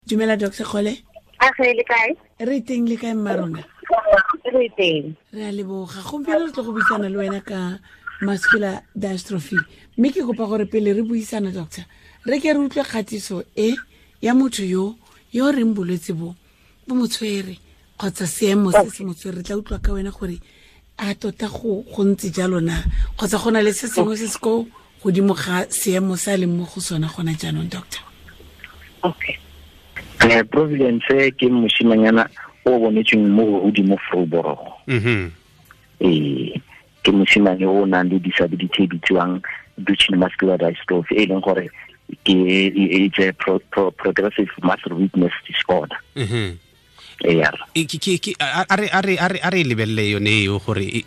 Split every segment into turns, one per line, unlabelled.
Dumela, Dr Kgole.
A ge le kae?
Re teng, le kae mma rona?
Re teng.
Re a leboga. Gompieno re tlo go buisana le wena ka muscular dystrophy, mme ke kopa gore pele re buisana, doctor, re ke re utlwe kgatiso e ya motho yo reng bolwetse bo bo mo tshwere kgotsa seemo se se mo tshwere. Re tla utlwa ka wena gore a tota go ntse jalo na, kgotsa go na le se sengwe se se ko godimo ga seemo se a leng mo go sona gona jaanong, doctor.
Okay.
Providence ke mosimanyana o bonetsweng mo godimo Vryburg. Ee, ke mosimane o nang le disability e bitsiwang Duchenne muscular dystrophy, e leng gore ke it's a progressive muscle weakness disorder. Ee.
A re lebelele yone eo, gore e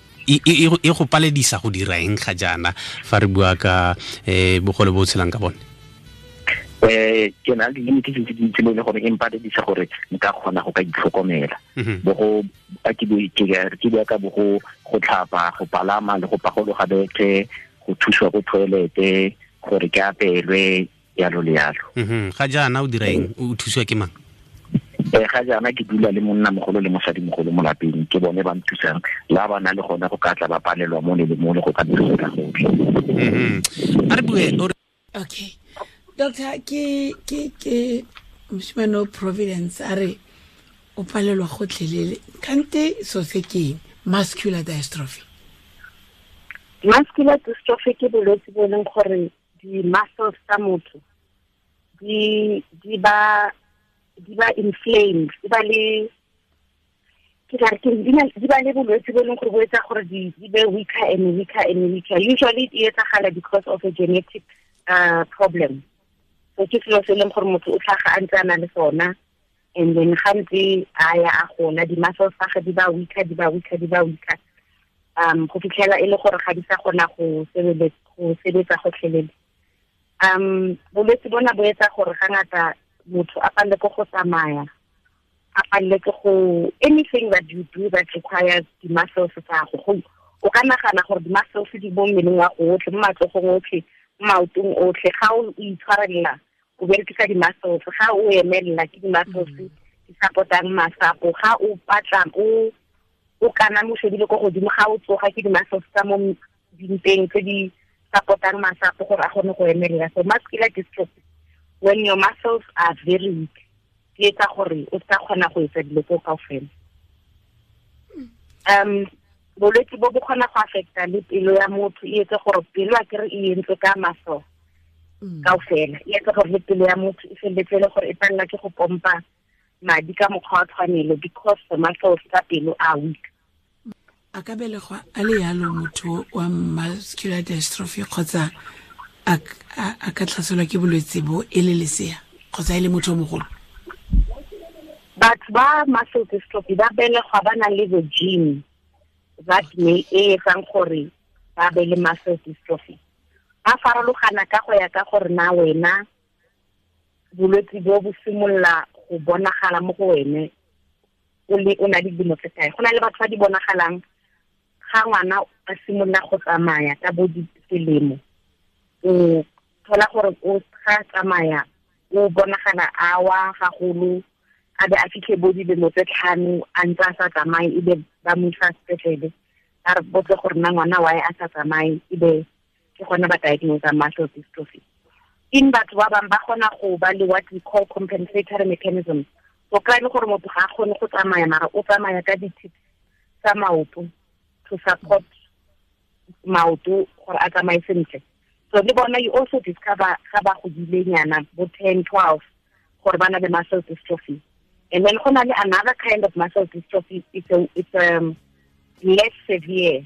go paledisa go dira eng ga jaana fa re bua ka bogole bo o tshelang ka bone?
Ke na le di-limitations tse dintsi mo e leng gore e mpaledisa gore nka kgona go ka itlhokomela. Bo go a ke bua ka bo go tlhapa, go palama le go pagologa bethe, go thusiwa ko toilete, gore ke apelwe, yalo le yalo.
Ga jaana o dira eng? O thusiwa ke mang?
Ga jaana ke dula le monna mogolo le mosadi mogolo mo lapeng. Ke bone ba nthusang la ba na le gone go ka tla ba palelwa mo le mo le go ka thusa ka gotlhe.
A re bue.
Okay, doctor, ke mosimane o Providence a re o palelwa gotlhelele. Kante so se ke eng, muscular dystrophy?
Muscular dystrophy ke bolwetse bo e leng gore di-muscles tsa motho di ba inflamed, di ba le, ke tla re ke di ba le bolwetse bo e leng gore bo etsa gore di be weaker and weaker and weaker. Usually e etsagala because of a genetic problem. So ke selo se e leng gore motho o tlhaga a ntse a na le sona, and then ga ntse a ya a gola, di-muscles tsa gage di ba weaker, di ba weaker, di ba weaker, go fitlhela e le gore ga di sa kgona go sebetsa gotlhelele. Bolwetse bona bo etsa gore ga ngata motho a palele ke go tsamaya, a palele ke go anything that you do that requires di-muscles tsa go. O ka nagana gore di-muscles di mo mmeleng wa go otlhe, mo matsogong otlhe, mo maotong otlhe. Ga o itshwarelela, o berekisa di-muscles. Ga o emelela, ke di-muscles di support-ang masapo. Ga o patla, o kana mo shebile ko godimo, ga o tsoga, ke di-muscles tsa mo dimpeng tse di support-ang masapo gore a kgone go emelela. So muscular dystrophy, when your muscles are very weak, di etsa gore o sa kgona go etsa dilo tseo kaofela. Bolwetse bo bo kgona go affecta le pelo ya motho, e etse gore pelo, a kere e entswe ka muscle kaofela, e etse gore le pelo ya motho e feleletse e le gore e palela ke go pompa madi ka mokgwa wa tshwanelo, because the muscles tsa pelo are weak.
A ka belegwa a le yalo motho wa muscular dystrophy, kgotsa a ka tlhaselwa ke bolwetse bo e le lesea kgotsa e le motho o mogolo?
Batho ba muscle dystrophy ba belegwa ba na le the gene that may e etsang gore ba be le muscle dystrophy. Ba farologana ka go ya ka gore na wena bolwetse bo bo simolola go bonagala mo go wene o le o na le dilemo tse kae. Go na le batho ba di bonagalang ga ngwana a simolola go tsamaya ka bo diselemo. O thola gore o ga tsamaya, o bonagala a wa gagolo, a be a fitlhe bo dilemo tse 5 a ntse a sa tsamaye, ebe ba mo isa sepetlele, ba re botse gore na ngwana wae a sa tsamaye, ebe ke gona ba diagnose muscle dystrophy. In batho ba bangwe ba kgona go ba le what we call compensatory mechanism. O kry le gore motho ga a kgone go tsamaya, mara o tsamaya ka di-tips tsa maoto to support maoto gore a tsamaye sentle. So le bona you also discover ga ba godile nyana, bo 10, 12, gore ba na le muscle dystrophy. And then go na le another kind of muscle dystrophy. It's a less severe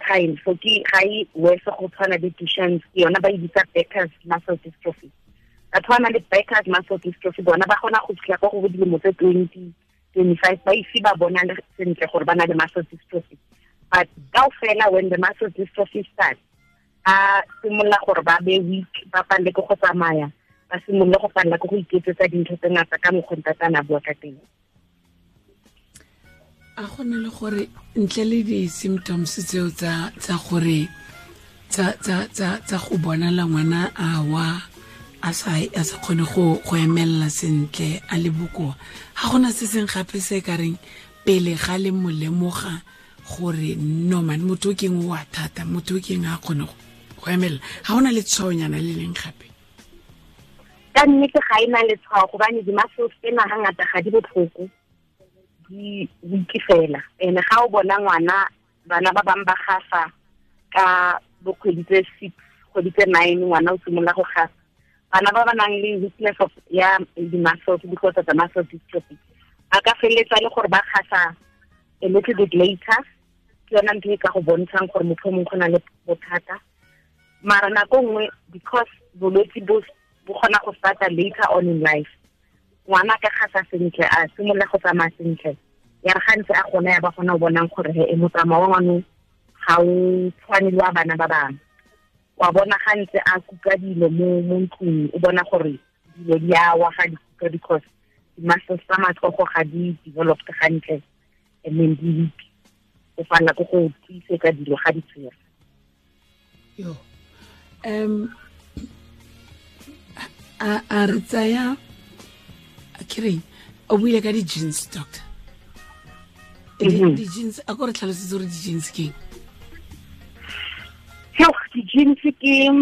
kind. So ke ga e worse go tshwana le Duchenne's. Ke yona ba e bitsa Becker's muscle dystrophy. Batho ba nang le Becker's muscle dystrophy bona ba kgona go fitlha kwa go bo dilemo tse 20, 25 ba ise ba bona le sentle gore ba na le muscle dystrophy. But kaofela, when the muscle dystrophy starts, a simolola gore ba be weak, ba palele ke go tsamaya, ba simolole go palela ke go iketsetsa dintho tse ngata ka mokgwa ntatana bua ka teng.
A go na le gore ntle le di-symptoms tseo tsa gore tsa go bonala ngwana a wa A sa kgone go emelela sentle, a le bokoa. Ga gona se seng gape se ka reng pele ga le mo lemoga gore no man, motho o keng o a thata, motho o keng a kgone go emelela. Ga gona letshwaonyana le leng gape?
Ka nnete ga e na letshwao, gobane di-muscles tsena hangata ga di botlhoko, di weak fela. And ga o bona ngwana, bana ba bangwe ba gafa ka bo kgwedi tse 6, kgwedi tse 9, ngwana o simolola go gafa. Bana ba ba nang le weakness of ya di-muscles because of the muscle dystrophy, ba ka feleletsa le gore ba gasa a little bit later. Ke yona ntho e ka go bontshang gore motho o mongwe go na le bothata. Mara nako nngwe, because bolwetse bo kgona go starta later on in life, ngwana ka gasa sentle, a simolola go tsamaya sentle, ya re ga ntse a gona ya ba gona o bonang gore he motsamao wa ngwano ga o tshwane le wa bana ba bangwe. Wa bona ga ntse a kuka dilo mo ntlong, o bona gore dilo di a wa ga di kuka because di-muscles tsa matsogo ga di developed gantle, and then di weak. O fana ko go tiisetsa dilo ga di tshwere.
Yo. A re tsaya, ke reng, o buile ka di-jeans, doctor. Di-jeans, a ko re tlhalosetse gore di-jeans ke eng?
Di-jeans ke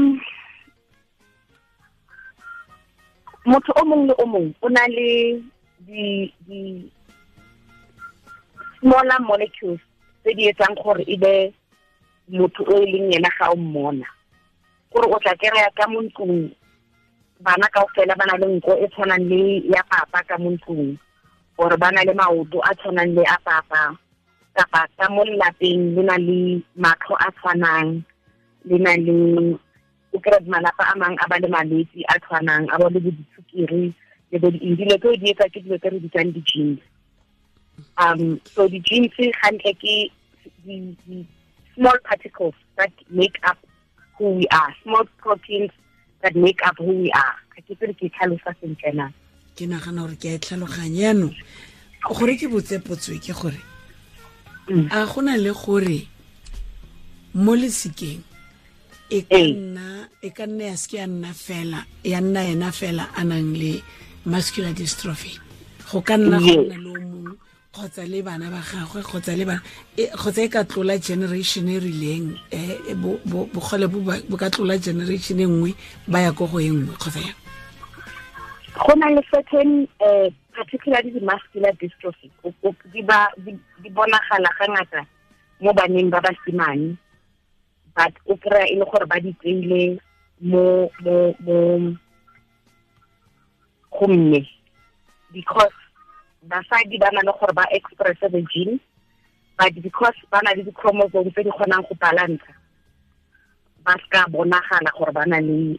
motho o mongwe le o mongwe o na le di smaller molecules tse di etsang gore e be motho o e leng yena ga o mmona. Gore o tla kry-a ka mo ntlong bana kaofela ba na le nko e tshwanang le ya papa ka mo ntlong, or ba na le maoto a tshwanang le a papa, kapa ka mo lelapeng le na le matlho a tshwanang, le na le o kry-a malapa a mangwe a ba le malwetse a tshwanang, a ba le bo disukiri le bo di-eng. Dilo tseo di etsa ke dilo tse re bitsang di-genes. So di-genes gantle ke di small particles that make up who we are, small proteins that make up who we are. Ga ke tsere ke tlhalosa sentle na.
Ke nagana gore ke a e tlhaloganya jaanong. Gore ke botse potso e ke gore, a gona le gore mo lesikeng e ka nna ya seke ya nna fela, ya nna ena fela a nang le muscular dystrophy, go ka nna go nna le o mongwe kgotsa le bana ba gagwe, kgotsa le bana, kgotsa e ka tlola generation e rileng, bogole bo ka tlola generation e nngwe ba ya ko go e nngwe, kgotsa yang?
Go na le certain, particularly the muscular dystrophy, di bonagala ga ngata mo baneng ba basimane, but o kry-a e le gore ba di tseile mo go mme, because basadi ba na le gore ba express the gene, but because ba na le di-chromosome tse di kgonang go balance, ba ska bonagala gore ba na le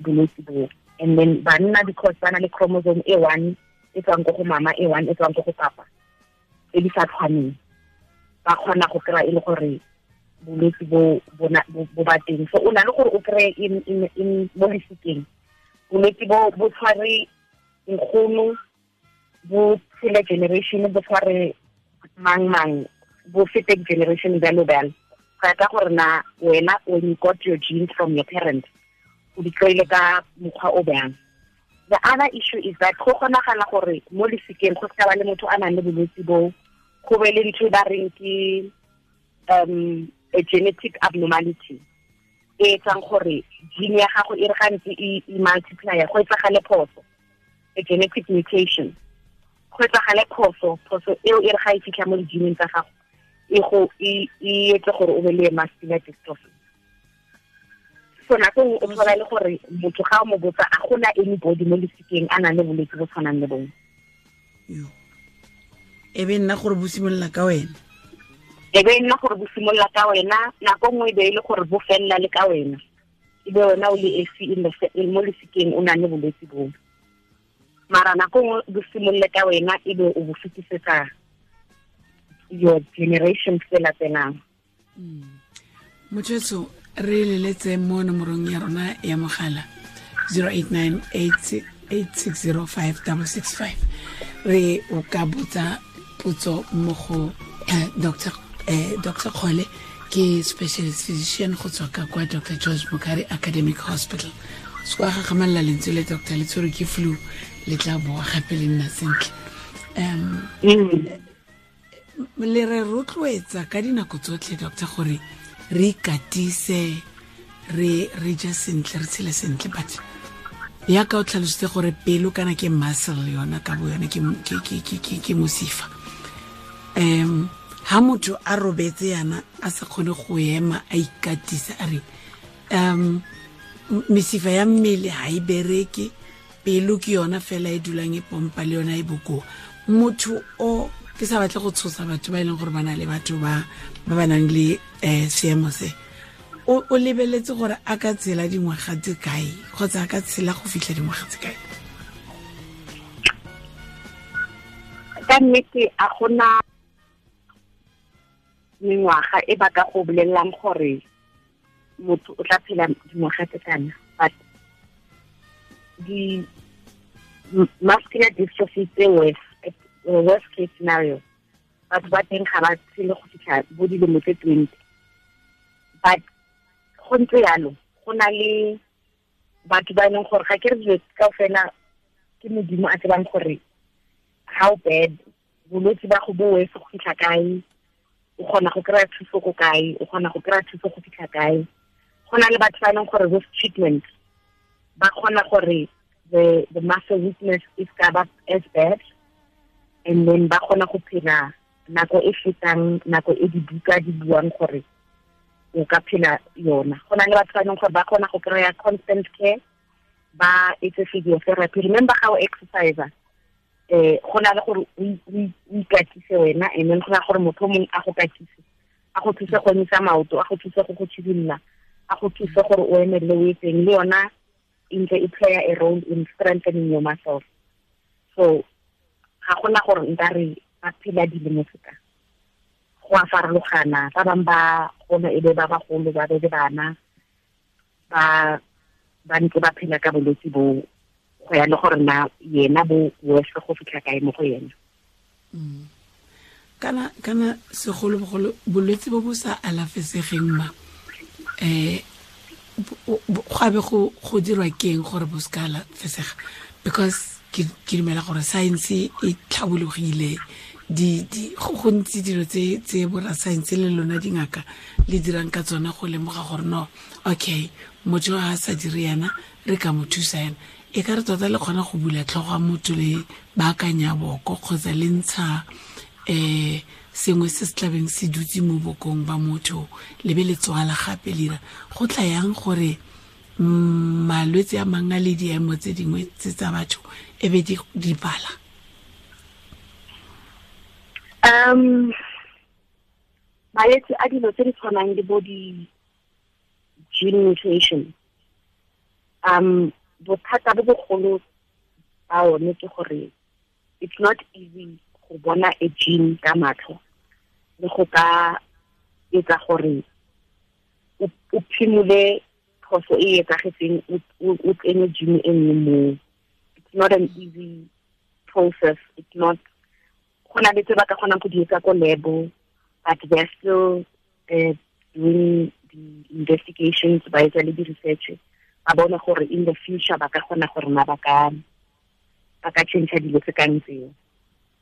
bolwetse bo. And then banna, because ba na le chromosome e one e tswang ko go mama, e one e tswang ko go papa, e di sa tshwaneng, ba kgona go kry-a e le gore bolwetse bo ba teng. So o na le gore o kry-e in mo lesikeng bolwetse bo tshware nkgono, bo tshele generation, bo tshware mang mang, bo fete generation bjalo bjalo. Go ya ka gore na wena when you got your genes from your parents, o di kry-ile ka mokgwa o bjang. The other issue is that go kgonagala gore mo lesikeng go seka ba le motho a nang le bolwetse bo, go be le ntho e ba reng ke a genetic abnormality e etsang gore gene ya gago e re gantsi e multiplya, go etsagale phoso, a genetic mutation, go etsagale phoso eo e re ga e fitlha mo di-geneng tsa gago, e go e etse gore o be le muscular dystrophy. So nako nngwe o thola le gore motho ga o mo botsa, a gona anybody mo lesikeng a nang le bolwetse bo tshwanang le bongwe.
E be nna gore bo simolola ka wena.
E be nna gore bo simolola ka wena, nako nngwe e be e le gore bo felela le ka wena, e be wena o le esi mo lesikeng o nang le bolwetse boo. Mara nako nngwe bo simolole ka wena, e be o bo fetisetsa your generation tse latelang.
Motho re leletse mo nomorong ya rona ya mogala 089 8605665, re o ka botsa potso mo go Dr. Dr. Kgole, ke specialist physician go tswa ka kwa Dr. George Mukhari Academic Hospital. Se kwa gagamelela lentswe le doctor le tshwerwe ke flu le tla boa gape le nna sentle. Le re rotloetsa ka dinako tsotlhe doctor gore re ikatise, re je sentle, re tshele sentle, but ya ka o tlhalositse gore pelo kana ke muscle yona ka bo yone ke mosifa. Ha motho a robetse yana a sa kgone go ema a ikatisa a re mesifa ya mmele ha e bereke, pelo ke yona fela e dulang e pompa le yona e bokoa. Motho o ke sa batle go tshosa batho ba e leng gore ba na le batho ba ba nang le seemo se, o lebeletse gore a ka tshela dingwaga tse kae kgotsa a ka tshela go fitlha dingwaga tse kae?
Ka nnete a gona mengwaga e ba ka go bolelelang gore motho o tla phela dingwaga tse kana, but di muscular dystrophy tse worst case scenario batho ba teng ga ba tshele go fitlha bo dilemo tse 20. But go ntse yalo, go na le batho ba e leng gore ga ke re dilo kaofela ke Modimo a tsebang gore how bad bolwetse ba go bo worse go fitlha kae, o kgona go kry-a thuso ko kae, o kgona go kry-a thuso go fitlha kae. Go na le batho ba e leng gore with treatment ba kgona gore the muscle weakness is ka ba as bad, and then ba kgona go phela nako e fetang nako e dibuka di buang gore o ka phela yona. Go na le batho ba e leng gore ba kgona go kry-a constant care, ba etse physiotherapy. Remember how exercise go na le gore o ikatise wena, and then go na gore motho mongwe a go katise, a go thuse go emisa maoto, a go thuse go go tshidimola, a go thuse gore o emelele o etseng, le yona e ntse e play a role in strengthening your muscles. So ga gona gore nka re ba phela dilemo tse ka go a farologana. Ba bangwe ba gona e be ba bagolo, ba be le bana, ba ntse ba phela ka bolwetse bo, go ya le gore na yena bo worse go fitlha kae mo go yena.
Kana segolobogolo bolwetse bo bo sa alafesegeng ma go abe go dirwa keng gore bo se ka alafesega? Because ke dumela gore science e tlhabologile, go gontsi dilo tse borra science le lona dingaka le dirang ka tsona go lemoga gore no, okay, motho a sa dire yana re ka mo thusa yana. E ka re tota le kgona go bula tlhogo ya motho le baakanya boko kgotsa le ntsha sengwe se se tlabeng se dutse mo bokong ba motho le be le tswala gape le dira. Go tla yang gore malwetse a mangwe a le diemo tse dingwe tse tsa batho e be di bala?
Malwetse a dilo tse di tshwanang le bo di-gene mutation, bothata bo bogolo ba one ke gore it's not easy go bona a gene ka matlho le go ka etsa gore o phimole phoso e etsagetseng, o tsenye gene e nngwe moo. It's not an easy process. It's not, go na le tse ba ka kgonang go di etsa ko lab, but they're still doing the investigations, ba etsa le di-research, ba bona gore in the future ba ka kgona gore na ba ka change dilo tse kang tseo.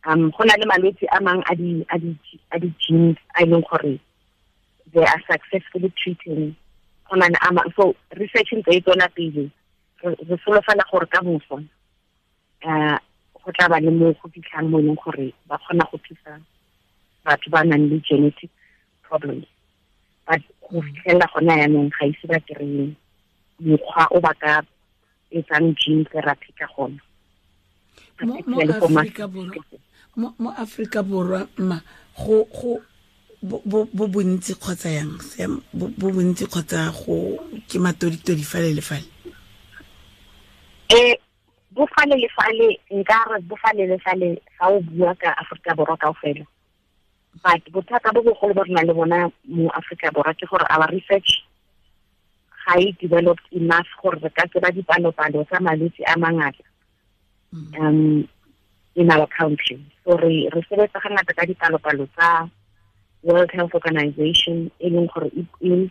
Go na le malwetse a mang a di-genes a e leng gore they are successfully treating. Go na le a mang, so research ntse e tswela pele, re solofela gore ka moso go tla ba le mo go fitlhang mo e leng gore ba kgona go thusa batho ba nang le genetic problems. But go fitlhelela gona yaanong ga ise ba kry-e mokgwa o ba ka etsang gene therapy ka gona.
Mo Afrika Borwa ma go bo bontsi kgotsa yang bo bontsi kgotsa go ke matoditodi fale le fale?
Bo fale le fale, nka re bo fale le fale ga o bua ka Afrika Borwa kaofela. But bothata bo bogolo bo re nang le bona mo Afrika Borwa ke gore our research ga e developed enough gore re ka tseba dipalopalo tsa malwetse a mangata in our country. So re sebetsa ga ngata ka dipalopalo tsa World Health Organization, e leng gore e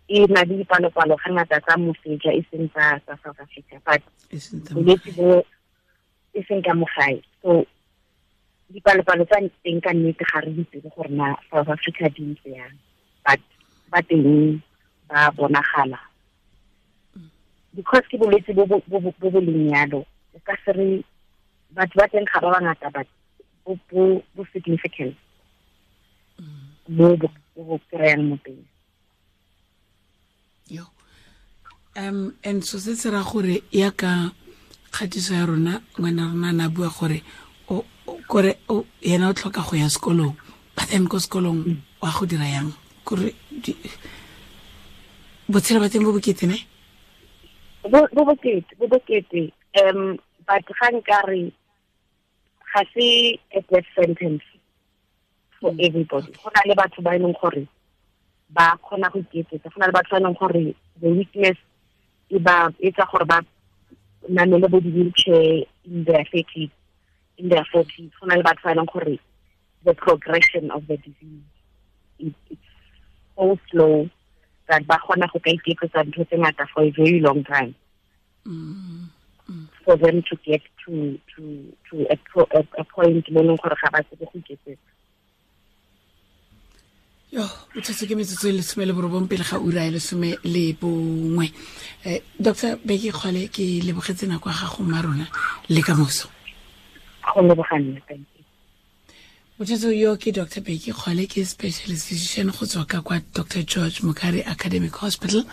E na le dipalopalo ga ngata tsa moseja e seng tsa South Africa, but bolwetse bo e seng ka mo gae. So dipalopalo tsa teng ka nnete ga re itse gore na South Africa di ntse yang, but ba teng ba bonagala. Because ke bolwetse bo bo leng yalo, o ka se re batho ba teng ga ba bangata, but bo significant mo bo kry-ang mo teng.
Yo. And so se se ra gore ya ka kgatiso ya rona, ngwana rona na bua gore kore yena o tlhoka go ya sekolong, but then ko sekolong wa go dira yang kore botshelo ba teng bo bokete ne?
Bo bokete. But ga nkare ga se a death sentence for everybody. Go na le batho ba e leng gore ba kgona go iketsetsa, go na le batho ba e leng gore the weakness e ba etsa gore ba namele bo di-wheelchair in their 30s, in their 40s. Go na le batho ba e leng gore the progression of the disease it's so slow that ba kgona go ka iketsetsa ntho tse ngata for a very long time. For them to get to a point mo leng gore ga ba tsebe go iketsetsa.
Yo, botsotso ke metsotso e 19 pele ga ura ya 11. Dr. Bheki Kgole, ke lebogetse nako ya gago mma rona le ka moso.
Go leboga nna, thank you.
Botsotso yo ke Dr. Bheki Kgole, ke specialist physician go tswa ka kwa Dr. George Mukhari Academic Hospital.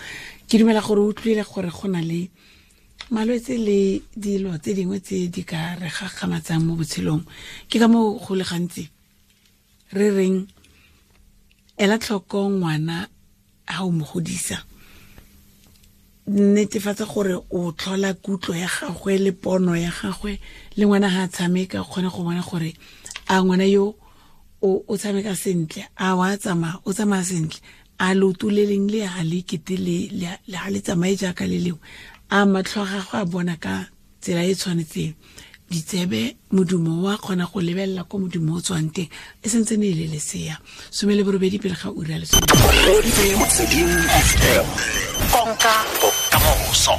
Ke dumela gore o utlwile gore go na le malwetse le dilo tse dingwe tse di ka re gakgamatsang mo botshelong. Ke ka moo go le gantsi re reng ela tlhoko ngwana ha o mo godisa, netefatsa gore o tlhola kutlo ya gagwe le pono ya gagwe, le ngwana ha a tshameka o kgone go bona gore a ngwana yo o tshameka sentle, a wa tsamaya, o tsamaya sentle, a leoto le leng le ha le kete le ha le tsamaye jaaka le lengwe, a matlho a gagwe a bona ka tsela e tshwanetseng, ditsebe modumo wa kgona go lebelela ko modumo o tswang teng, e sentse ne e le lesea. 18 pele ga ura ya 10.
Konka bokamoso.